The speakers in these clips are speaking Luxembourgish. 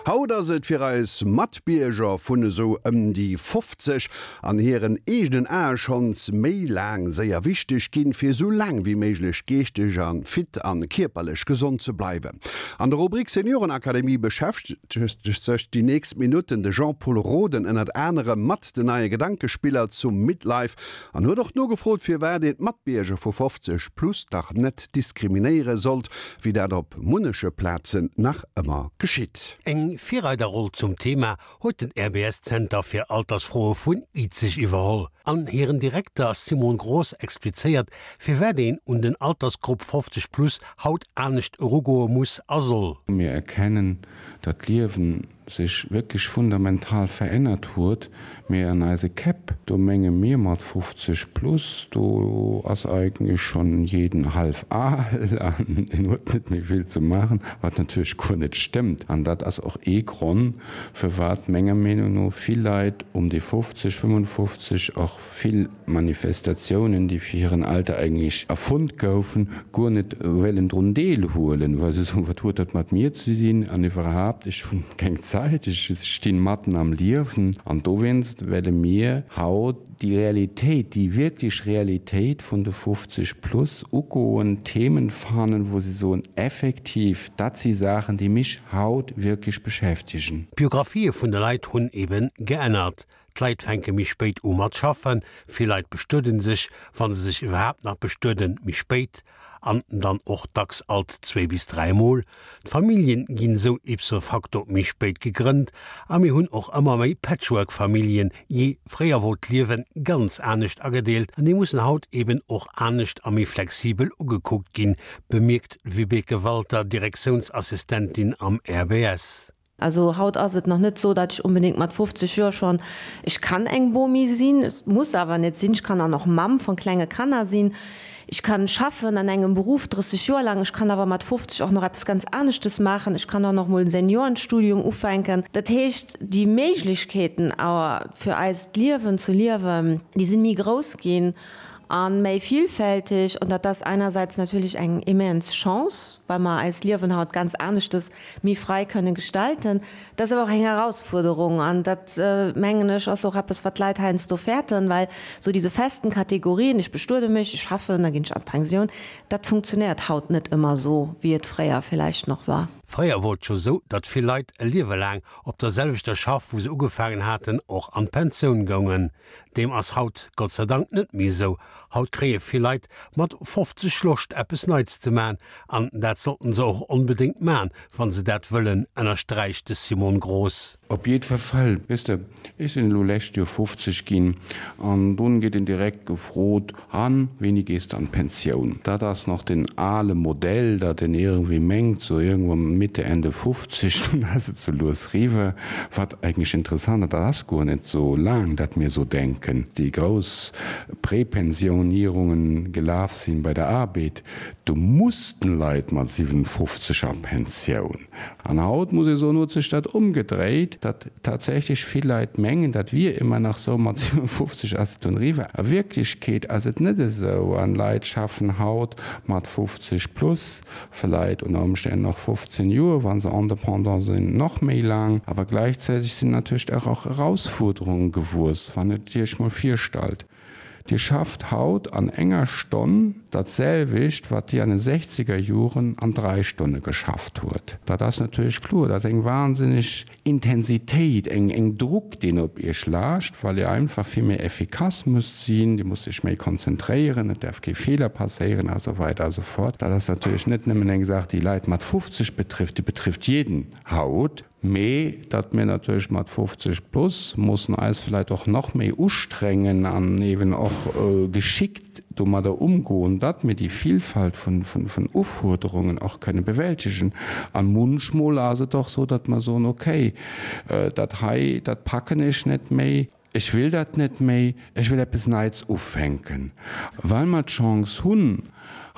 Haut ass et fir eis Matbierger vun esou ëm déi 50 an hiren eegenen Ae schonns méi laang séier wichteg ginn, fir esou laang wéi méiglech geeschteg a fit an kierperlech gesond ze bleiwen. An der Rubrik Seniorenakademie beschäftegt sech déi nächst Minutten de Jean-Pol Roden ënnert anerem mat den neie Gedankespiller zum Midlife an huet och nogefrot, firwat een d'Matbierger vu 50 plus dach net diskriminéiere sollt, wéi dat op munneche Plazen nach ëmmer geschitt. Eng Virreiderroll zum Thema huet den RBS-Zenter fir Altersfroe vun Izeg iwwerholl. An hiren Direkter Simon Groß explizéiert, firwat een un den Altersgrupp 50 plus haut anescht erugoe muss a soll. Mir erkennen, datt d'Liewen sech wierklech fundamental verännert huet, mee an eise Käpp, do menge mir mat 50 plus, do ass eigentlech schonn jeden hallef al an en huet net méi vill ze maachen, wat natierlech guer net stëmmt. An dat ass och ee Gronn, firwat menger Meenung no vill Leit um déi 50, 55 och vill Manifestatiounen, déi fir hiren Alter eigentlech erfonnt goufen, guer net wéilen drun deelhuelen, well se soen, wat huet dat mat mir ze dinn an iwwerhaapt, ech hunn keng Zäit, ech stinn matten am Liewen. An dowéinst welle mir haut déi Realitéit, déi wierklech Realitéit vun de 50 plus ugoen, Themen fannen, wou se soen, effektiv, dat si Saachen, déi mech haut wierklech beschäftegen. D'Biographië vun de Leit hunn eben geännert. D'Leit fänke méi spéit u mat schaffen, vill Leit bestueden sech, wa se sech iwwerhaapt nach bestueden, méi spéit an dann och dacks alt zwee bis dräi Mol. D'Familljen ginn esou ipso facto méi spéit gegrënnt a mir hunn och ëmmer méi Patchwork-Familljen. Jee, fréier wor d'Liewe ganz anescht agedeelt an déi mussen haut eben och anescht a méi flexibel ugekuckt ginn, bemierkt d'Vibeke Walter, Direktiounsassistentin am RBS. Also haut ass et nach net sou, datt ech onbedéngt mat 50 Joer schonn, ech kann eng Bomi sinn, et muss awer net sinn, ech kann och nach Mamm von klenge Kanner sinn, ech kann schaffen an engem Beruff 30 Joer laang, ech kann awer mat 50 och nach eppes ganz aneschtes maachen, ech kann och nach mol en Seniorenstudium ufänken. Dat heescht, déi Méiglechkeeten awer fir eist Liewen ze liewen, déi sinn méi grouss ginn a méi vielfältig an dat ass einerseits natierlech eng immens Chance, well mer eist Liewen haut ganz aneschtes méi frei kënnen gestalten. Dat ass awer och eng Herausfuerderung an dat, mengen ech, ass och eppes, wat d'Leit heiansdo fäerten, well esou diese festen Kategorien, ech bestuede mech, ech schaffen, da ginn ech an d'Pensioun, dat funktionéiert haut net ëmmer esou, wéi et fréier villäicht nach war. Fréier wor et jo esou, datt vill Leit e Liewe laang op der selwechter Schaff, wou se ugefaangen haten, och an d'Pensioun goungen. Deem ass haut Gott sei Dank net méi esou. Haut kréie vill Leit mat 50 Loscht eppes Neits ze man an dat sollten se och onbedéngt man, wann se dat wëllen, ënnersträicht de Simon Groß. Op jiddwer Fall, weess de, ech sinn elo lescht Joer 50 ginn an dunn gétt een direkt gefrot, An, wéini gees de an d'Pensioun? Dat ass nach den ale Modell, datt een iergendwéi mengt, sou iergendwann Mitte, Ende 50, dunn ass et sou lues riwwer. Wat eigentlech interessant ass, dat ass guer net sou laang, datt mir sou denken, déi grouss Prepensionierungen gelaf sinn bei der Arbed, do mussten Leit mat 57 a Pensioun. An haut, muss ee soen, huet sech dat ëmgedréit, datt tatsächlech vill Leit mengen, dat wier ëmmer nach sou, mat 57 ass et dunn eriwwer. A Wierklechkeet ass et net esou an Leit schaffen haut mat 50 plus, vläit ënner Ëmstänn nach 15 Joer, wa se Indépendant sinn, nach méi laang. Awer gläichzäiteg sinn natierlech och Erausfuerderunge gewuess, wann et Iech mol virstallt, Dir schafft haut an enger Stonn dat selwecht, wat Dir an den sechzeger Joren an drai Stonne geschafft huet. Dat ass natierlech kloer, dat ass eng wahnsinneg Intensitéit, eng eng Druck, deen op Iech laascht, well Dir einfach vill méi effikass musst sinn, Dir musst Iech méi konzentréieren, et däerf kee Feeler passéieren a sou weider a sou fort. Dat ass natierlech net nëmmen eng Saach, déi Leit mat 50 betrifft, déi betrifft jeden haut. Mee datt mir natierlech mat 50 plus mussen eis vläicht och nach méi ustrengen an eeben och geschickt domadder umgoen, datt mir déi Vielfalt vun Ufuerderungen och kënne bewältegen. A munchmol ass et och sou, datt mer soen, okay, dat hei, dat packen ech net méi. Ech will dat net méi, ech will eppes Neits ufänken. Well mer d'Chance hunn,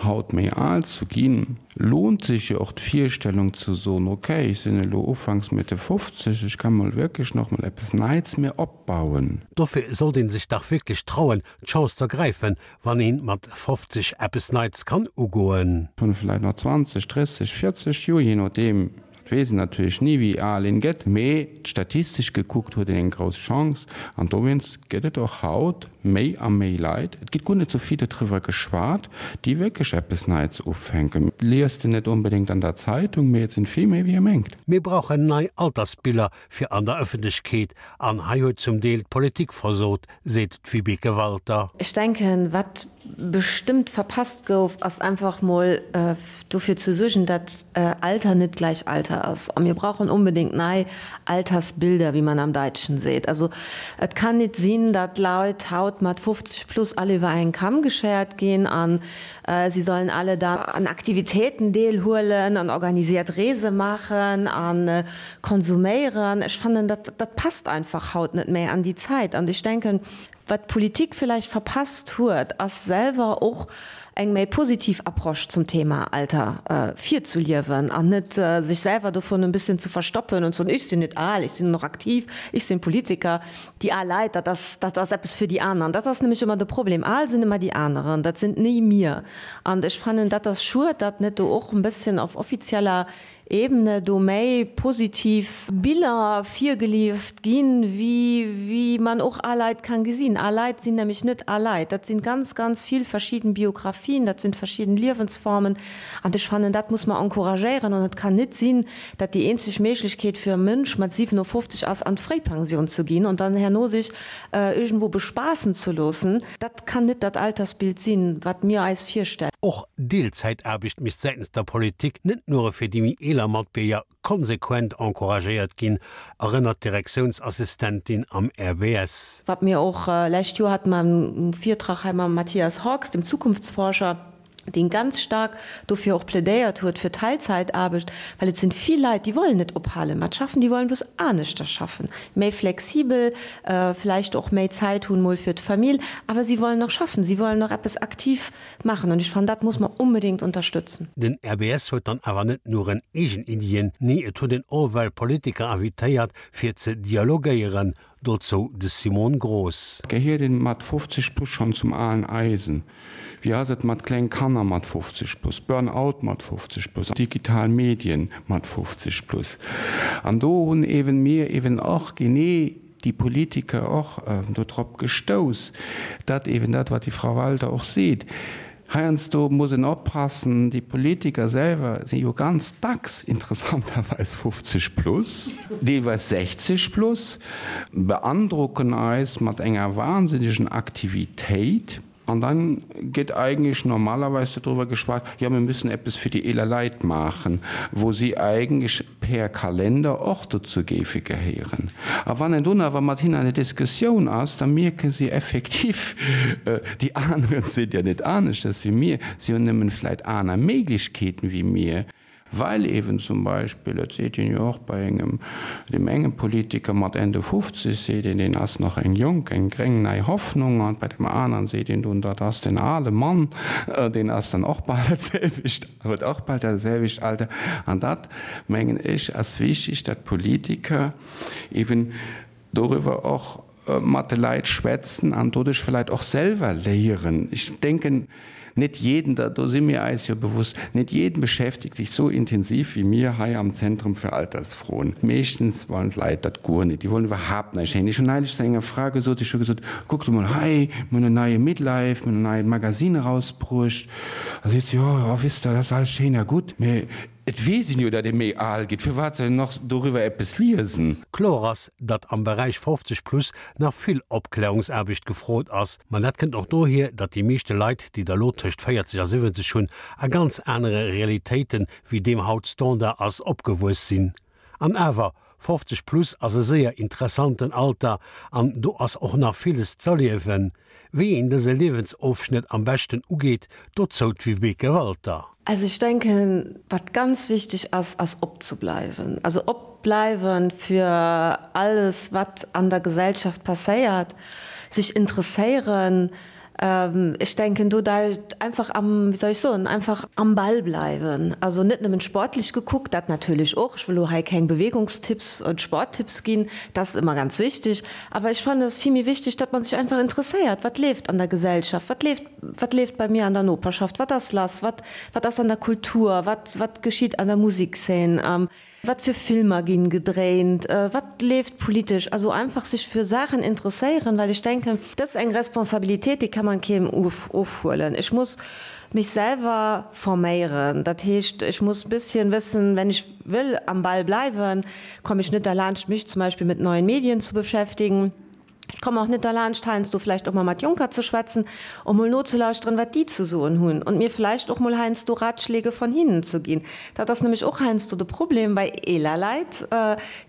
haut méi al ze ginn, lohnt sech jo och d'Virstellung ze soen, ok, ech sinn elo ufanks Mitte 50, ech ka mol wierklech nach mol eppes Neits mir opbauen. Dofir sollt een sech dach wierklech trauen, d'Chance z'ergräifen, wann een mat 50 eppes Neits kann ugoen. Hunn vläit nach 20, 30, 40 Joer, jee nodeem. Et weess een natierlech ni wéi al een gëtt, mee statistesch gekuckt huet een eng grouss Chance an dowéinst gëtt et och haut méi a méi Leit, et gëtt guer net sou vill dodriwwer geschwat, déi wierklech eppes Neits ufänken. Et liest en net onbedéngt an der Zeitung, mee et sinn vill méi wéi ee mengt. Mir brauchen nei Altersbiller fir an der Ëffentlechkeet an hei huet zum Deel d'Politik versot, seet d'Vibeke Walter. Ech denken, wat bestëmmt verpasst gouf, ass einfach mol dofir ze suergen, dat Alter net gleich Alter ass. A mir brauchen onbedéngt nei Altersbilder, wéi man am Daitschen seet. Also et kann nit sinn, dat Leit haut mat 50 plus all iwwer en Kamm geschéiert ginn an si sollen alle dann an Aktivitéiten deelhuelen an organisiert Reese maachen a konsuméieren. Ech fannen, dat dat passt einfach haut net méi an déi Zäit. An ech denken, Wat d'Politik villäicht verpasst huet, ass selwer och eng méi positiv Approche zum Thema Alter virzuliewen an net sech selwer dovun en bësschen ze verstoppen an ze soen, ech sinn net al, ech sinn nach aktiv, ech sinn Politiker. Déi al Leit, dat ass, dat ass eppes fir déi aneren. Dat ass nämlech ëmmer de Problem, al sinn ëmmer déi aneren, dat sinn ni mir. An ech fannen, dat ass schued, datt net do och en bësschen auf offizieller Ebene do méi positiv Biller virgelieft ginn, wéi wéi man och al Leit kann gesinn. Al Leit sinn nämlech net al Leit, dat sinn ganz, ganz vill verschidden Biografien, dat sinn verschidden Liewensformen an ech fannen, dat muss mer encouragéieren an et kann nit sinn, dat déi eenzeg Méiglechkeet fir e Mënsch mat 57 ass, an d'Fréipension zu ginn und dann herno sech irgendwo bespaassen ze loossen. Dat kann nit dat Altersbild sinn, wat mir eis virstellen. Och Deelzäitaarbecht misst säitens der Politik net nure fir déi méi eeler Matbierger konsequent encouragéiert ginn, erënnert d'Direktiounsassistentin am RBS. Wat mir och, lescht Joer hate mer e Virtrag hei mam Matthias Hawks, dem Zukunftsforscher, deen ganz staark dofir och plädéiert huet fir Teilzäitaarbecht, well et sinn vill Leit, déi wollen net ophale mat schaffen, déi wollen bloss aneschter schaffen, méi flexibel, vläicht och méi Zäit hunn mol fir d'Famill, awer si wollen nach schaffen, si wollen nach eppes aktiv maachen an ech fannen, dat muss mer onbedéngt unterstützen. Den RBS huet dann awer net nuren eegen Iddien, nee et huet en och well Politiker invitéiert fir ze dialogéieren, Dozou de Simon Groß. Gehiert een mat 50 plus schonn zum alen Eisen? Wéi ass et mat kleng Kanner mat 50 plus, Burn out mat 50 plus, digital Medien mat 50 plus? An do hunn eeben mir eeben och genee déi Politiker och dodrop gestouss, datt eeben dat, wat déi Frau Walter och seet, Heiansdo muss en oppassen, déi Politiker selwer si jo ganz dacks interessanterweis 50 plus, deelweis 60 plus, beandrocken eis mat enger wahnsinnegen Aktivitéit an dann gëtt eigentlech normalerweis dodriwwer geschwat, jo mir müssen eppes fir déi eeler Leit maachen, wou si eigentlech per Kalender och dozou géife gehéieren. A wann een dunn awer mat hinnen an der Diskussioun ass, da mierke si effektiv, déi aneren sinn jo net aneschters wéi mir, si hunn nëmmen vläit aner Méiglechkeeten wéi mir, well eeben zum Beispill, et seet een jo och bei engem, deem enge Politiker mat Ende 50 seet een, deen ass nach eng jonk, eng gréng nei Hoffnung, an bei deem aneren seet een dunn, dat ass den ale Mann, deen ass dann och bal dat selwecht. Huet och bal dat selwecht Alter. An dat, mengen ech, ass wichtig, datt d'Politiker eben doriwwer och mat de Leit schwätzen an doduerch vläicht och selwer léieren. Ech denken, net jeden, do si mir eis jo bewusst, net jeden beschäftigt sich so intensiv wie mir hei am Zentrum für Altersfroen. Meeschtens wollen d'Leit dat guer net, déi wollen iwwerhaapt näischt héieren. Ech hunn neulich zu enger Fra gesot, ech hu gesot, Kuckt emol hei, mir hunn en neie Midlife, mir hunn en neit Magazine erausbruecht. Da seet se, Jo, jo, wisst Der, dat ass alles schéin a gutt, mee et weess een jo, datt ee méi al gétt, firwat soll een nach doriwwer eppes liesen? Kloer ass, datt am Beräich 50 plus nach vill Opklärungsaarbecht gefrot ass. Ma dat kënnt och dohier, datt déi meeschte Leit, déi der elo tëscht 40 a 70 hunn, a ganz anere Realitéiten, wéi deem haut Standard ass, opgewuess sinn. An awer, 50 plus ass e séier interessanten Alter an do ass och nach villes z'erliewen. Wéi een dëse Liewensofschnëtt am beschten ugeet, dozou d'Vibeke Walter. Also ech denken, wat ganz wichteg ass, ass opzebleiwen. Also opbleiwen fir alles wat an der Gesellschaft passéiert, sech interesséieren, Ech denken do einfach am, wéi soll ech soen, einfach am Ball bleiwen. Also net nëmmen sportlech gekuckt, dat natierlech och, ech wëll elo hei keng Bewegungstipps und Sporttipps ginn, dat ass ëmmer ganz wichteg, awer ech fannen et ass vill méi wichteg, datt man sech einfach interesséiert, wat leeft an der Gesellschaft, wat leeft. wat leeft bei mir an der Noperschaft, wat ass lass, wat, wat ass an der Kultur, wat, wat geschitt an der Musikszeen, wat fir Filmer ginn gedréint, wat leeft politesch. Also einfach sech fir Saachen interesséieren, well ech denken, dat ass eng Responsabilitéit, déi kann man keem ofhuelen. Ech muss mech selwer forméieren, dat heescht, ech muss bësschen wëssen, wenn ech wëll am Ball bleiwen, komme ech net derlaanscht mech zum Beispill mit neuen Medien zu beschäftigen. Ech kommen och net derlaanscht, heiansdo vläicht och mol mat Jonker ze schwätzen, um mol nozelauschteren, wat déi ze soen hunn und mir vläicht och mol heiansdo Ratschläge von hinnen ze ginn. Dat ass nämlech och heiansdo de Problem bei eeler Leit,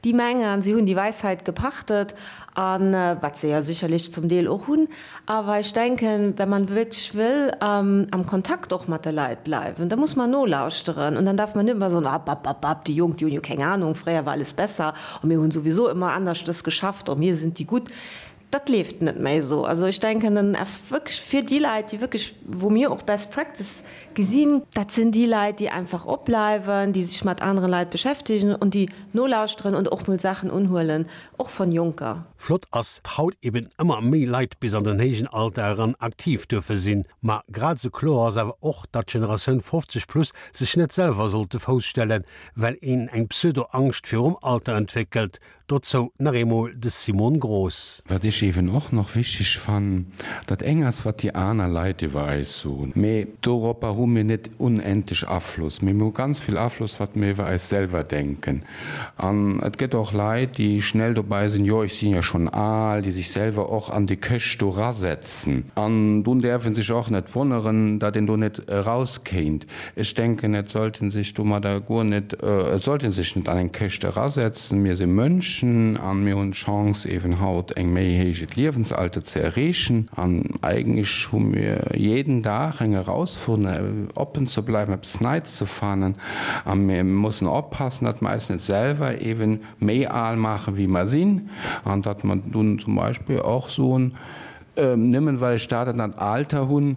déi mengen, si hunn die Weisheit gepachtet, a wat se jo sicherlech zum Deel och hunn. Awer ech denken, wenn man wierklech wëll am Kontakt och mat de Leit bleiwen, da muss man nolauschteren und dann darf man net ëmmer soen, App, app, app, app, déi Jonk, déi hunn jo keng Ahnung, fréier war alles besser. A mir hunn souwisou ëmmer anerschtes geschafft a mir sinn déi Gutt. Dat leeft net méi esou. Also ech denken, den Eff wierklech fir déi Leit, déi wierklech, wou mir och Best Practice gesinn, dat sinn déi Leit, déi einfach opbleiwen, déi sech mat anere Leit beschäftegen und déi nolauschteren und och mol Saachen unhuelen, och von Jonker. Flott ass, datt haut eben ëmmer méi Leit bis an den héijen Alter eran aktiv duerfe sinn. Ma grad esou kloer ass awer och, datt d'Generatioun 50 plus sech net selwer sollt de Fouss stellen, well een eng Pseudo-Angscht virum Alter entwéckelt. Dozou nach eemol de Simon Groß. Wat ech eeben och nach wichteg fannen, dat eng ass wat déi aner Leit iwwer eis soen, mee doropper hu mir net unendlech Afloss, mee mir hu ganz vill Afloss wat mir iwwer eis selwer denken. An et gëtt och Leit, déi schnell dobei sinn, jo ech sinn jo schonn al, déi sech selwer och an déi Këscht do rasetzen. An dunn däerf e sech och net wonneren, datt een do net erauskéint. Ech denken, et sollt ee sech domadder guer net, et sollt ee sech net an eng Këscht erasetzen. Mir si Mënschen a mir hunn d'Chance eeben haut eng méi héijet Liewensalter ze erreechen. An eigentlech hu mir jeden Dag eng Erausforderung, oppen ze bleiwen, eppes Neits ze fannen. A mir mussen oppassen, datt mer eis net selwer eeben méi al maachen, wéi mer sinn, an datt mer dunn zum Beispill och soen, nëmmen well ech dat an dat Alter hunn,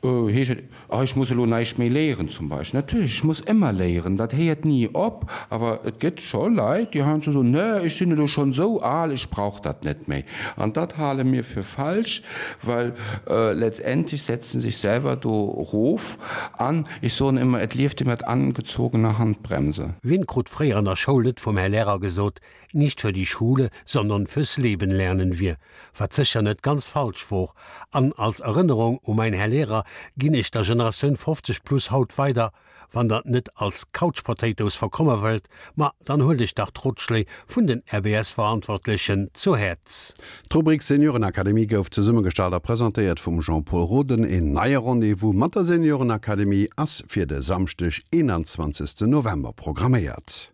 Heescht et, oh ech muss elo näischt méi léieren zum Beispill? Natierlech, ech muss ëmmer léieren, dat héiert ni op. Awer et gëtt scho Leit, déi heiansdo soen, nee, ech sinn elo schonn esou al, ech brauch dat net méi. An dat hale mir fir falsch, well letztendlech setzt en sech selwer do erof. An ech soen ëmmer, et lieft ee mat angezogener Handbremse. Wien krut fréier an der Schoul net vum Här Lehrer gesot, Nicht für die Schule, sondern fürs Leben lernen wir, wat sécher net ganz falsch wor. An als Erënnerung u mäin Här Lehrer ginn ech der Generatioun 50 plus haut weider, Wann der net als Couch Potatoes verkomme wëllt, ma dann huelt iech dach d'Rotschléi vun den RBS-Verantwortlechen zu Häerz. D'Rubrik Seniorenakademie gouf zesummegestallt a presentéiert vum Jean-Pol Roden. Een neie Rendez-vous mat der Seniorenakademie ass fir de Samschdeg, 21 November programméiert.